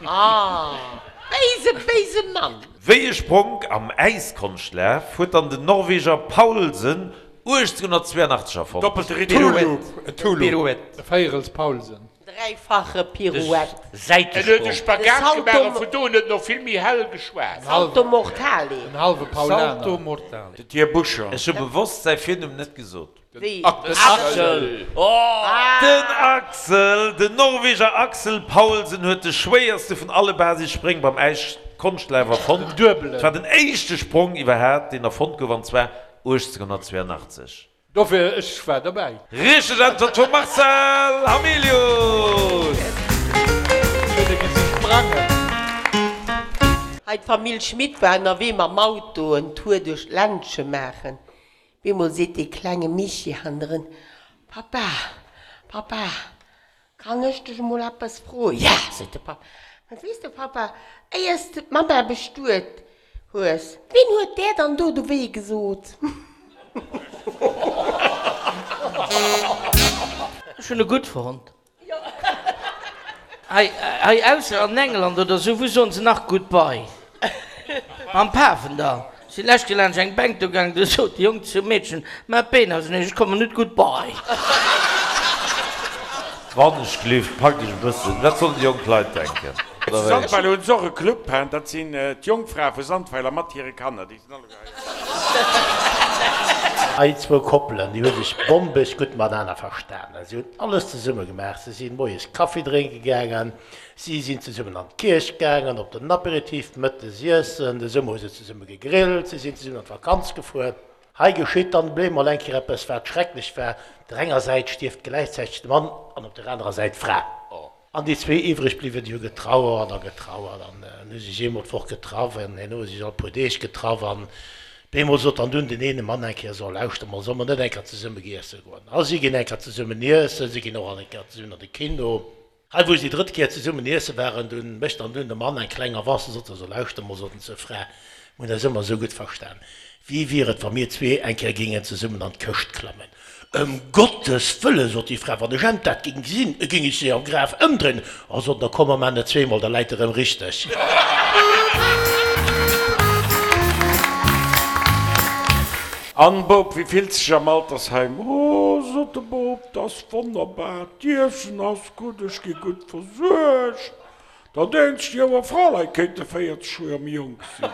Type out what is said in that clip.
Ah, béise, béise Mann! Wéi e Spronk am Äiskonschtlaf huet dann den Norweger Paulsen 1882 erfonnt? Doppelte Retour. Pirouette. E Véierels Paulsen. Dräifache Pirouette. En huet e Spagat gemaach a vun do un huet en och vill méi hell geschwat. Salto mortale. En halwe Paulaner. Salto mortale. Den Här Buscher. Ech hu bewosst säi Virnumm net gesot. Wéi? Den Axel. Den Axel, den Norweger Axel Paulsen huet de schwéierste vun alle Basisspréng beim Äiskonschtlaaf erfonnt. Den duebelen. Et war den éischte Sprong iwwerhaat, deen erfonnt gouf, an zwar 1882. Dofir, ech war derbäi. Richteg Äntwert vum Marcel Hamilius! Ech hunn e gesi sprangen. Hei d'Famill Schmit war ënnerwee mam Auto en Tour duerch d'Ländche maachen. Bemol seet dee klenge Michi hannendrun, Papa, Papa, kann ech dech emol eppes froen? Ja, seet de Papp. Mä weess de, Papa, éiers de d'Mamma bestuet hues, ween huet där dann do de Wee gesot? Ech hunn e gutt fonnt. Hei, hei ausser an England oder sou, wou soen se nach Goodbye? Am Pafendall. Si lescht Kéier laanscht eng Bänk do gaangen, du sot de Jong zum Meedchen, Maach d'Been auseneen, ech kommen net, Goodbye. Wann ech gleeft, packt iech e bëssen. Wat sollen déi jonk Leit denken, oder Zu wéi? Sandweiler hunn se och e Club, hein, dat sinn d'Jongfrae vu Sandweiler mat hire Kanner, déi sinn alleguer hei. Hei zwou Koppelen, déi hu sech bombeg gutt matenaner verstanen. Si hunn alles zesumme gemaach. Se sinn moies Kaffi drénke gaangen, si sinn zesummen an d'Kierch gaangen, op den Aperitif, mëttes iessen, de Summer hu se zesumme gegrillt, si sinn zesummen an d'Vakanz gefuer. Hei geschitt dann blémol eng Kéier eppes, wat schrecklech war, Op der enger Säit stierft gläichzäiteg de Mann an op der anerer Säit d'Fra. An déi zwee iwwreg bliwwen, déi hu getrauert a getrauert an hu sech eemol d'Woch getraff an herno hu se sech all puer Deeg getraff. An bemol sot dann dunn den eene Mann eng Kéier, So, lauschter mol, solle mer net eng Kéier zesumme giesse goen? A si ginn eng Kéier zesummen iessen, si ginn och all eng Kéier zesummen an de Kino. Hei, wou si déi drëtt Kéier zesummen iesse waren, dunn mécht dann dunn de Mann eng kleng Avance a sot, So, lauschter mol, sot en zur Fra, mir hunn eis ëmmer esou gutt verstan, wéi wier et, wa mir zwee eng Kéier géingen zesummen an d'Këscht klammen? Ëm Gottes Wëllen, sot déi Fra, wann ech emt dat géing gesinn, géing ech se am Graf ëmdréinen. Oh, sot en, da komm mer maan et zweemol, da läit e rëm richteg. An, Bop, wéi fills dech am Altersheim? Oh, sot de Bop, 't ass wonnerbar, d'Iessen ass gutt, ech gi gutt versuergt. Dat eenzegt, Joer Fraleit kéinte 40 Joer méi jonk sinn.